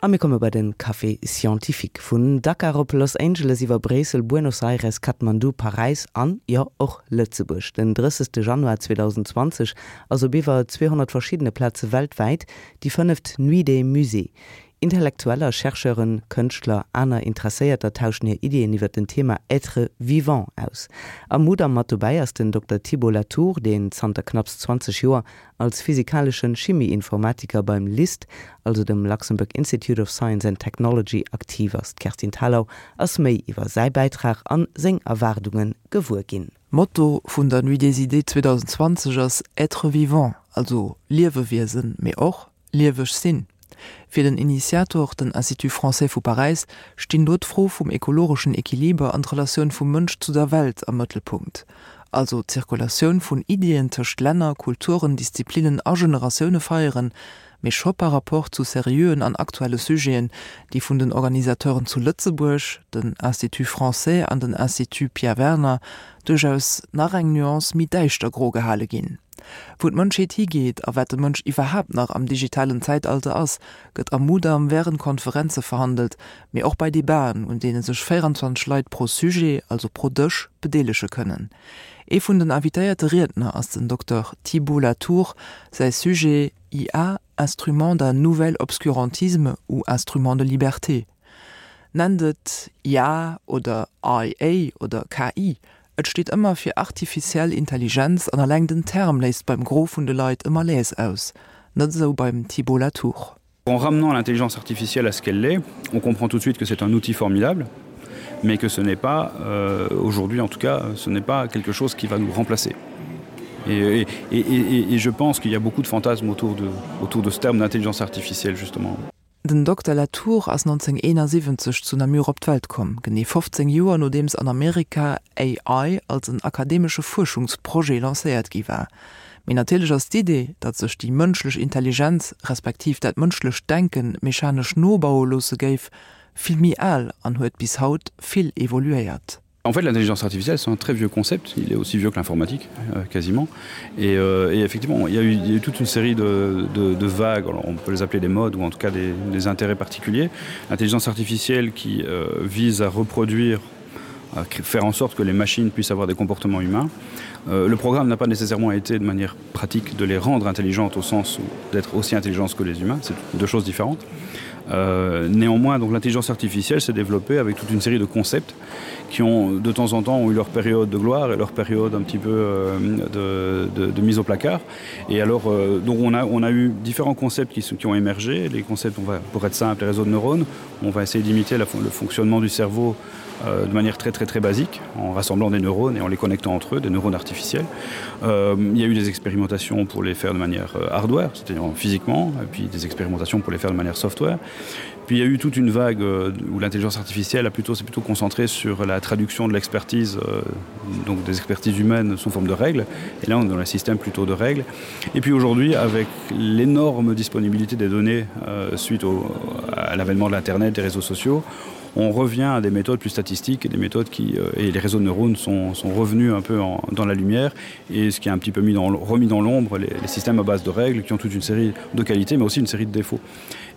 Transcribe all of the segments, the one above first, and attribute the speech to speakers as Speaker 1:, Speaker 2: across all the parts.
Speaker 1: A mir komme bei den Café Scientifique. Vun Dakar op Los Angeles iwwer Bréissel, Buenos Aires, Kathmandu, Paräis an, jo, och Lëtzebuerg. Den 30. Januar 2020 ass op iwwer 200 verschiddene Plaze weltwäit déi fënneft Nuit des Musées. Intellektueller, Chercheuren, Kënschtler, aner Interesséierter tauschen hir Iddien iwwer den Thema Être vivant aus. Am Mudam mat dobäi ass den Dokter Thibault Latour, deen zanter knapps 20 Joer als physikaleschen Chimieinformatiker beim LIST, also dem Luxembourg Institute of Science and Technology, aktiv ass. D'Kerstin Thalau ass méi iwwer säi Bäitrag an seng Erwaardunge gewuer ginn.
Speaker 2: Motto vun der Nuit des Idées 2020 ass Être vivant, also Liewewiesen, mee och lieweg sinn. Fir den Initiator, den Institut Français vu Paräis, stinn do d'Fro vum ekologeschen Equiliber an d'Relatioun vum Mënsch zu der Welt am Mëttelpunkt. Also d'Zirkulatioun vun Iddien tëscht Länner, Kulturen, Disziplinnen a Generatioune feieren, mee scho par rapport zu seriöen an aktuelle Sujeten, déi vun den Organisateuren zu Lëtzebuerg, den Institut Français an den Institut Pierre Werner, duerchaus nach eng Nuance méi däischtergro gehale ginn. Wou d'Mënschheet higeet a wat de Mënsch iwwerhaapt nach am digitalen Zäitalter ass, gëtt am Mudam wärend Konferenze verhandelt, mee och bei Debaten, un deene sech 24 Leit pro Sujet, also pro Dësch, bedeelege kënnen. Ee vun den invitéierte Riedner ass den Dokter Thibault Latour. Säi Sujet, IA, instrument d'un nouvel obscurantisme ou instrument de liberté? Nennt et IA oder IA oder KI, Et steet ëmmer fir artificiell Intelligenz an alleng den Term léist beim Gros vun de Leit e Malaise aus. Net esou beim Thibault Latour.
Speaker 3: En ramenant l'intelligence artificielle à ce qu'elle est, on comprend tout de suite que c'est un outil formidable, mais que ce n'est pas euh, aujourd'hui en tout cas, ce n'est pas quelque chose qui va nous remplacer. Et, et, et, et, et je pense qu'il y a beaucoup de fantasmes autour de, autour de ce terme d'intelligence artificielle justement.
Speaker 2: Den Dokter Latour ass 1971 zu Namur op d'Welt komm, genee 15 Joer nodeems an Amerika AI als en akademesche Fuerschungsprojet lancéiert gi war. Mee natierlech ass d'Idee, datt sech déi mënschlech Intelligenz, respektiv dat mënschlecht Denken mechanesch nobaue loosse géif, vill méi al an huet bis haut vill evoluéiert.
Speaker 3: En fait, l'intelligence artificielle, c'est un très vieux concept. Il est aussi vieux que l'informatique, euh, quasiment. Et, euh, et effectivement, il y, a eu, il y a eu toute une série de, de, de vagues, Alors, on peut les appeler des modes ou en tout cas des, des intérêts particuliers. L'intelligence artificielle qui euh, vise à reproduire à faire en sorte que les machines puissent avoir des comportements humains. Euh, le programme n'a pas nécessairement été de manière pratique de les rendre intelligentes au sens d'être aussi intelligentes que les humains, c'est deux choses différentes. Euh, néanmoins, l'intelligence artificielle s'est développée avec toute une série de concepts qui ont de temps en temps ont eu leur période de gloire et leur période un petit peu euh, de, de, de mise au placard. Et alors euh, donc on a, on a eu différents concepts qui, qui ont émergé. Les concepts on va, pour être simple, les réseaux de neurones, on va essayer d'imiter le fonctionnement du cerveau euh, de manière très très très basique en rassemblant des neurones et en les connectant entre eux, des neurones artificiels. Euh, il y a eu des expérimentations pour les faire de manière euh, hardware, c'est-à-dire physiquement, et puis des expérimentations pour les faire de manière software. Puis il y a eu toute une vague euh, où l'intelligence artificielle a plutôt s'est plutôt concentrée sur la traduction de l'expertise euh, donc des expertises humaines sous forme de règles et là on est dans un système plutôt de règles et puis aujourd'hui avec l'énorme disponibilité des données euh, suite au, à l'avènement de l'internet des réseaux sociaux on revient à des méthodes plus statistiques et des méthodes qui euh, et les réseaux de neurones sont, sont revenus un peu en, dans la lumière et ce qui a un petit peu mis dans, remis dans l'ombre les, les systèmes à base de règles qui ont toute une série de qualités mais aussi une série de défauts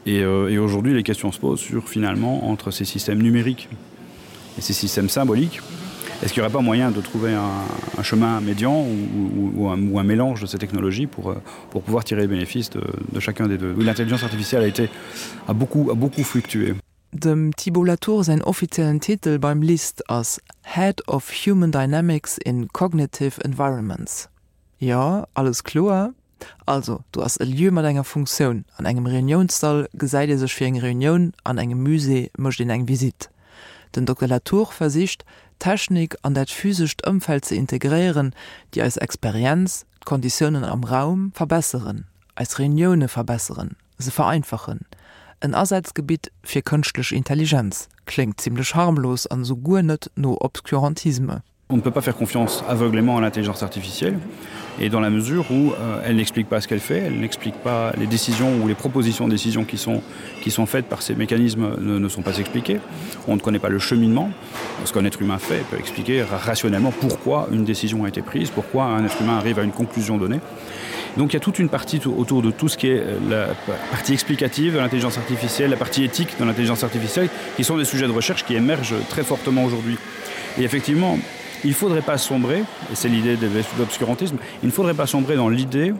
Speaker 3: et, euh, et aujourd'hui les questions se posent sur finalement entre ces systèmes numériques et ces systèmes symboliques est-ce qu'il n'y aurait pas moyen de trouver un, un chemin médian ou, ou, ou, un, ou un mélange de ces technologies pour, euh, pour pouvoir tirer les bénéfices de, de chacun des deux l'intelligence artificielle a été a beaucoup a beaucoup fluctué
Speaker 2: Dem Thibault Latour säin offiziellen Titel beim LIST ass Head of Human Dynamics in Cognitive Environments. Jo, alles kloer? Also, do ass e Lieu mat enger Funktioun. An engem Reuniounssall gesäit ee sech fir eng Reunioun, an engem Musée mécht een eng Visitt. Den Dokter Latour versicht, d'Technik an dat physescht Ëmfeld ze integréieren, déi eis Experienz, d'Konditiounen am Raum verbesseren, eis Reunioune verbesseren. Se vereinfachen. En Asazgebitt fir kënschtlech Intelligenz. Kléngt zimlech harmlos an esou guer net no Obscurantisme.
Speaker 3: On ne peut pas faire confiance aveuglément à l'intelligence artificielle et dans la mesure où euh, elle n'explique pas ce qu'elle fait, elle n'explique pas les décisions ou les propositions de décisions qui sont, qui sont faites par ces mécanismes ne, ne sont pas expliquées. On ne connaît pas le cheminement, ce qu'un être humain fait peut expliquer rationnellement pourquoi une décision a été prise, pourquoi un être humain arrive à une conclusion donnée. Donc il y a toute une partie autour de tout ce qui est euh, la partie explicative de l'intelligence artificielle, la partie éthique de l'intelligence artificielle, qui sont des sujets de recherche qui émergent très fortement aujourd'hui. Et effectivement, il ne faudrait pas sombrer, et c'est l'idée de l'obscurantisme, il ne faudrait pas sombrer dans l'idée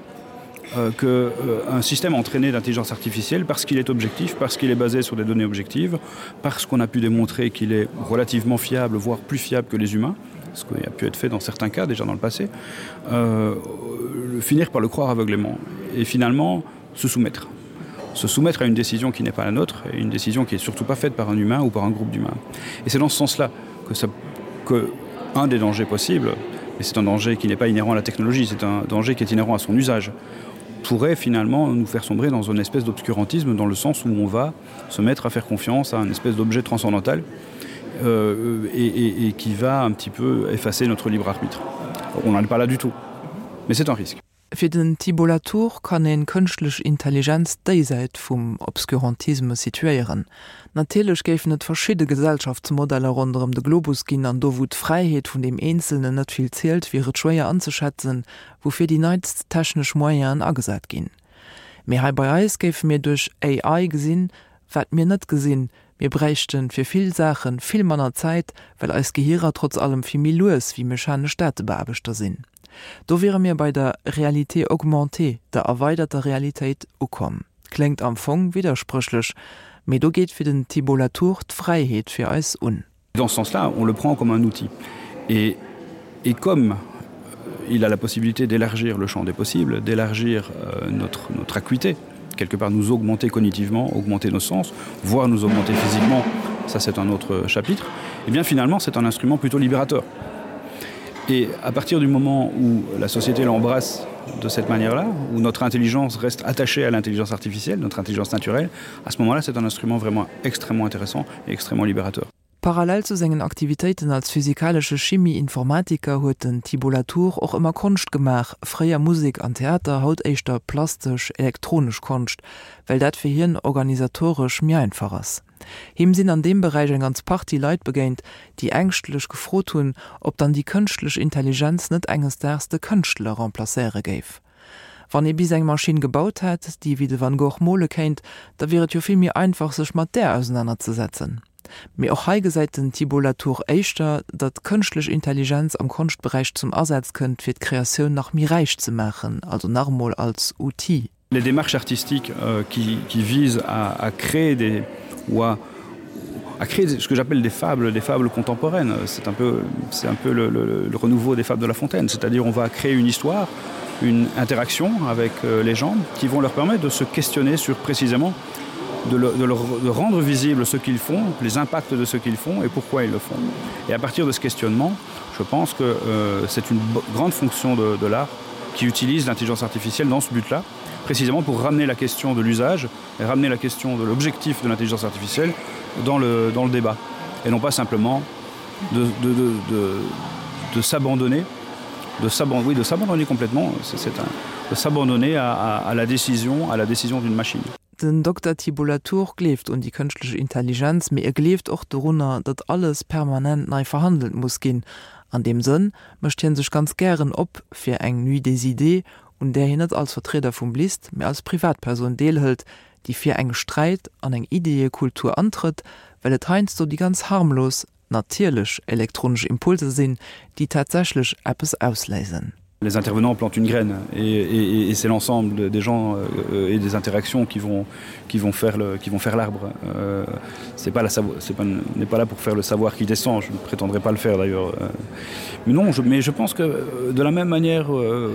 Speaker 3: euh, qu'un euh, système entraîné d'intelligence artificielle, parce qu'il est objectif, parce qu'il est basé sur des données objectives, parce qu'on a pu démontrer qu'il est relativement fiable, voire plus fiable que les humains, ce qui a pu être fait dans certains cas déjà dans le passé, euh, finir par le croire aveuglément et finalement se soumettre. Se soumettre à une décision qui n'est pas la nôtre et une décision qui est surtout pas faite par un humain ou par un groupe d'humains. Et c'est dans ce sens-là que, ça, que un des dangers possibles, et c'est un danger qui n'est pas inhérent à la technologie, c'est un danger qui est inhérent à son usage, pourrait finalement nous faire sombrer dans une espèce d'obscurantisme dans le sens où on va se mettre à faire confiance à une espèce d'objet transcendantal euh, et, et, et qui va un petit peu effacer notre libre arbitre. On n'en est pas là du tout. Mais c'est un risque.
Speaker 2: Fir den Thibault Latour kann een kënschtlech Intelligenz déisäit vum Obscurantisme situéieren. Natierlech géifen et verschidde Gesellschaftsmodeller ronderëm de Globus ginn an do wou d'Fräiheet vun deem Eenzelnen net vill zielt, wier et schwéier anzeschätzen, woufir déi neitst technesch Moyenen agesat ginn. Mee hei bei eis géife mir duerch AI gesinn, wat mir net gesinn, Mir bräichten fir vill Saachen vill manner Zäit, well eis Gehirer trotz allem vill méi lues wéi mechanesch Datebeaarbechter sinn. Do wiere mir bei der Réalité augmentée, der erweiderter Realitéit, ukomm. Kléngt am Fong widderspréchlech, mee do geet fir den Thibault Latour d'Fräiheet fir eis un.
Speaker 3: Dans ce sens-là, on le prend comme un outil. Et, et comme il a la possibilité d'élargir le champ des possibles, d'élargir euh, notre, notre acuité, quelque part nous augmenter cognitivement, augmenter nos sens, voire nous augmenter physiquement, ça c'est un autre chapitre, et eh bien finalement c'est un instrument plutôt libérateur. Et à partir du moment où la société l'embrasse de cette manière-là, où notre intelligence reste attachée à l'intelligence artificielle, notre intelligence naturelle, à ce moment-là c'est un instrument vraiment extrêmement intéressant et extrêmement libérateur.
Speaker 2: Parallel zu sengen Aktivitéiten als physikalesche Chimie-Informatiker huet den Thibault Latour och ëmmer Konscht gemaach, fréier Musek an Theater, haut éischter plastesch, elektronesch Konscht, well dat fir hien organisatoresch méi einfach ass. Him sinn an deem Beräich eng ganz Partie Leit begéint, déi ängschtlech gefrot hunn, ob dann déi kënschtlech Intelligenz net enges Daags de Kënschtler remplacéiere géif. Wann ee bis eng Maschinn gebaut hätt, déi wéi de Van Gogh mole kéint, da wier et jo vill méi einfach, sech mat där ausenanerzesetzen. Mee och hei gesäit den Thibault Latour éischter, datt kënschtlech Intelligenz am Konschtberäich zum Asaz kënnt, fir d'Kreatioun nach méi räich ze maachen, also nach emol als Outil.
Speaker 3: Les démarches artistiques euh, qui, qui visent à, à créer des ou à, à créer ce que j'appelle des fables, des fables contemporaines. C'est un peu, c'est un peu le, le, le renouveau des fables de La Fontaine, c'est-à-dire on va créer une histoire, une interaction avec euh, les gens qui vont leur permettre de se questionner sur précisément de, le, de, leur, de rendre visible ce qu'ils font, les impacts de ce qu'ils font et pourquoi ils le font. Et à partir de ce questionnement, je pense que euh, c'est une grande fonction de, de l'art qui utilise l'intelligence artificielle dans ce but-là, précisément pour ramener la question de l'usage et ramener la question de l'objectif de l'intelligence artificielle dans le, dans le débat et non pas simplement de, de, de, de, de s'abandonner de s'abandonner oui, de s'abandonner complètement c'est un de s'abandonner à, à, à la décision à la décision d'une machine.
Speaker 2: Den Dokter Thibault Latour gleeft un déi kënschtlech Intelligenz, mee e gleeft och dorunner, datt alles permanent nei verhandelt muss ginn. An deem Sënn mécht hien sech ganz gären op fir eng Nuit des idées, un där hien net als Vertrieder vum LIST, mee als Privatpersoun deelhëlt, déi fir eng Sträit an eng Ideeëkultur antrëtt, well et heiansdo déi ganz harmlos, natierlech elektronesch Impulser sinn, déi tatsächlech eppes ausléisen.
Speaker 3: Les intervenants plantent une graine et, et, et c'est l'ensemble des gens euh, et des interactions qui vont, qui vont faire le, qui vont faire l'arbre. Euh, c'est pas la c'est pas n'est pas là pour faire le savoir qui descend, je ne prétendrai pas le faire d'ailleurs. Euh, mais non, je, mais je pense que euh, de la même manière euh,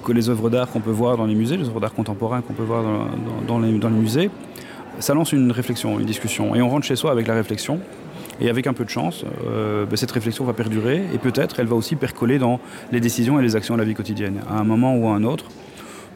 Speaker 3: que les œuvres d'art qu'on peut voir dans les musées, les œuvres d'art contemporain qu'on peut voir dans, dans, dans, les, dans les musées, ça lance une réflexion, une discussion et on rentre chez soi avec la réflexion. Et avec un peu de chance, euh, ben, cette réflexion va perdurer et peut-être elle va aussi percoler dans les décisions et les actions de la vie quotidienne, à un moment ou à un autre,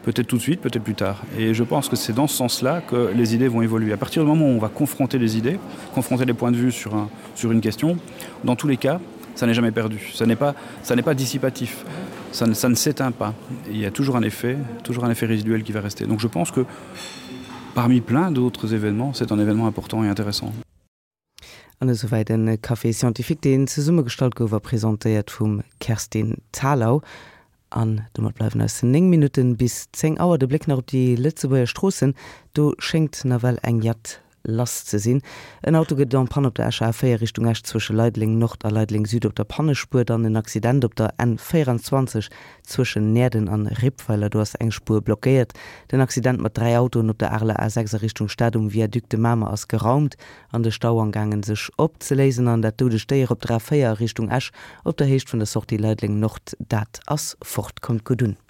Speaker 3: peut-être tout de suite, peut-être plus tard. Et je pense que c'est dans ce sens-là que les idées vont évoluer. À partir du moment où on va confronter les idées, confronter les points de vue sur, un, sur une question, dans tous les cas, ça n'est jamais perdu. Ça n'est pas, ça n'est pas dissipatif. Ça ne, ça ne s'éteint pas. Il y a toujours un effet, toujours un effet résiduel qui va rester. Donc je pense que parmi plein d'autres événements, c'est un événement important et intéressant.
Speaker 1: An esouwäit en Café scientifique, deen zesummegestallt gouf a presentéiert vum Kerstin Thalau. An domat bleiwen eis 9 Minutten bis 10 Auer. De Bléck nach op déi Lëtzebuerger Stroossen, do schéngt nawell eng Jatt lass ze sinn. En Auto gëtt en panne op der Escher A4 Richtung Esch zwësche Leideleng Nord a Leideleng Süd op der Pannespuer. Dann en Accident op der N24 zwëschen Näerden an Rippweiler, do ass eng Spuer blockéiert. Den Accident mat 3 Autoen op der Areler A6 a Richtung Stad um Viaduc de Mamer ass geraumt an de Stau amgaangen sech opzeléisen. An dat doudegt Déier op der A4 a Richtung Esch op der Héicht vun der Sortie Leideleng Nord, dat ass fort. Kommt gutt un.